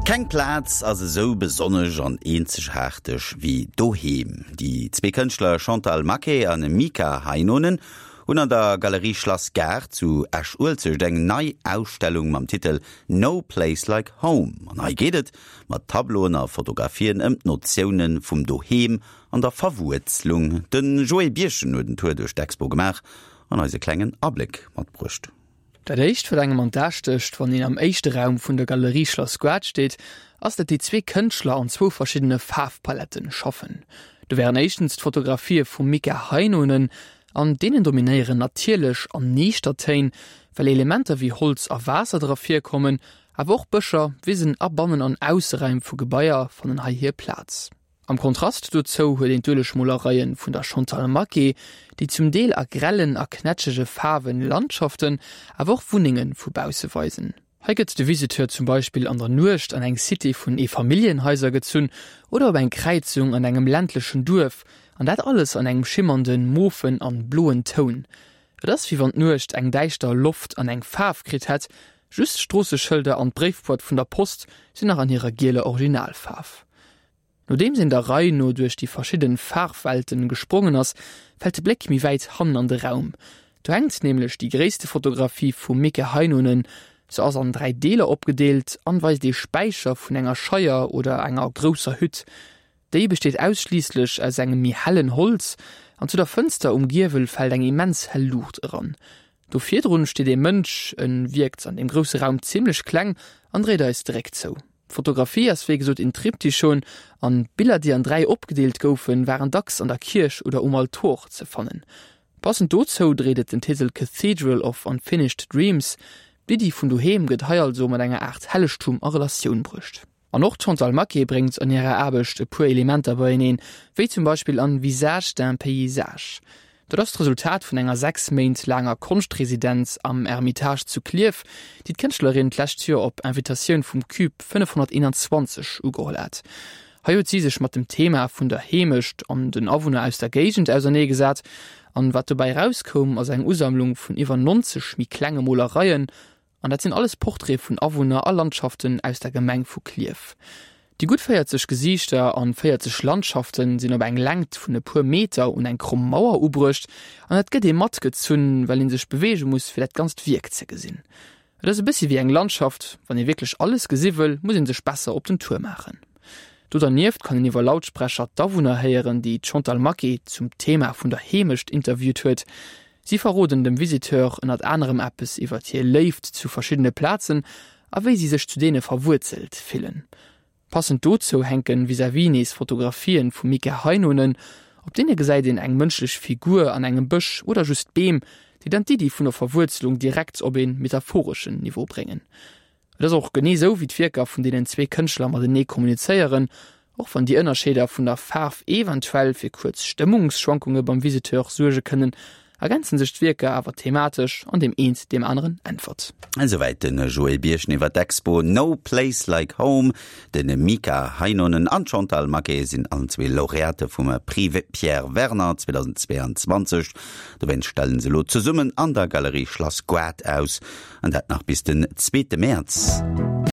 Keng Plaz ass esou besonnesch an eenzegaarteg wéi doheem. Déi zwee Kënschtler Chantal Maquet a Mika Heinonen hunn an der Galerie Schlass Gaart zu Esch-Uelzecht eng nei Ausstellung mam Titel No Place Like Home. An hei geet et mat Tableauen a Fotografien ëm d'Notioune vum Doheem an der Verwuerzlung. De Joé Birchen huet en Tour duerch d'Expo gemaach an eis e klengen Abléck matbruecht. Dat éischt, wat engem an d'A stécht, wann een am éischte Raum vun der Galerie Schlass Goart steet, ass, dat déi zwee Kënschtler an zwou verschiddene Faarfpaletten schaffen. Do wären éischtens d'Fotografië vum Mika Heinonen. An deenen dominéieren natierlech an niichter Téin, well Elementer wéi Holz a Waasser dra virkommen, awer och Bëscher, Wisen a Bannen an Ausseräim vu Gebaier fannen hei hir Plaz. Am Kontrast dozou huet een d'Uelegmolereien vun der Chantal Maquet, déi zum Deel a grellen a knätschege Faarwen Landschaften, awer och Wunnenge vu bausse weisen. Hei gëtt de Visiteur zum Beispill an der Nuecht an eng Cité vun Eefamilljenhaiser gezunn oder op eng Kräizung an engem ländlechen Duerf, an dat alles an engem schimmernden, mofen an bloen Toun. Et ass wéi wann d'Nuecht eng däischter Loft an eng Faarf kritt hätt, just d'Stroosseschëlder an d'Bréifboîte vun der Post sinn nach an hirer gieler Originalfaarf. Nodeems een der Rei no duerch déi verschidden Faarfwelten gesprongen ass, fält de Bléck méi wäit hannen an de Raum. Do hänkt nämlech déi gréisste Fotografie vum Mika Heinonen. Se ass an 3 Deeler opgedeelt an weist ee Späicher vun enger Scheier oder enger grousser Hütt. Déi besteet ausschliisslech aus engem méi hellen Holz an zu der Fënster um Giewel fält eng immens hell Luucht eran. Do virdrun steet ee Mënsch, en wierkt an deem grousse Raum zimlech kleng an dréit eis de Réck zou. D'Fotografie ass wéi gesot een Triptychon an d'Biller déi an 3 opgedeelt goufen waren dacks an der Kierch oder um Altor ze fannen. Passend dozou dréit et den Titel Cathedral of Unfinished Dreams. D'Iddi vun doheem gëtt hei also mat enger Aart Hellegtum a Relatioun bruecht. An och d'Chantal Maquet bréngt an hirer Aarbecht e puer Elementer beieneen, wéi zum Beispill an Visage d'un paysage. Dat ass d'Resultat vun enger 6 Méint laanger Konschtresidenz am Ermitage zu Klierf, déi d'Kënschtlerin d'lescht Joer op Invitatioun vum Cube 521 ugeholl hat. Hei huet si sech mat dem Thema vun der Heemecht an den Awunner aus der Géigend ausernee gesat. An wat dobäi erauskoum, ass eng Usammlung vun iwwer 90 méi klenge Molereien An dat sinn alles Portraite vun Awunner a Landschaften aus der Gemeng vu Klierf. Déi gutt 40 Gesiichter an 40 Landschaften sinn op eng Längt vun e puer Meter un eng kromm Mauer ubruecht an et gëtt ee matgezunn, well ee sech beweege muss fir dat ganzt Wierk ze gesinn. Et ass e bëssi wéi eng Landschaft, wann ee wierklech alles gesi wëll, muss ee sech besser op den Tour maachen. Do dernieft kann een iwwer Lautsprecher d'Awunner héieren, déi d'Chantal Maquet zum Thema vun der Heemecht interviewt huet. Si verroden dem Visiteur ënnert anerem eppes iwwert hir Léift zu verschiddene Plazen a wéi si sech zu deene verwuerzelt fillen. Passend dozou hänke vis-à-vis nees Fotografien vum Mika Heinonen. Op deene gesäit een eng mënschlech Figur an engem Bësch oder just Beem, déi dann d'Iddi vun der Verwuerzelung direkt op ee metaphoreschen Niveau bréngen. Et ass och genee sou wéi d'Wierker vun deenen zwee Kënschtler matenee kommunizéieren, och wann déi Ënnerscheeder vun der Faarf eventuell fir kuerz Stëmmungsschwankunge beim Visiteur suerge kënnen, ergänze sech d'Wierker awer thematesch an deem eent deem aneren äntwert. Esouwäit de Joé Birchen iwwer d'Expo No Place Like Home. De Mika Heinonen an d'Chantal Maquet sinn allen zwee Laureate vum Prix Pierre Werner 2022. Dowéinst stellen se elo zesummen an der Galerie Schlass Goart aus. An dat nach bis den zweete Mäerz.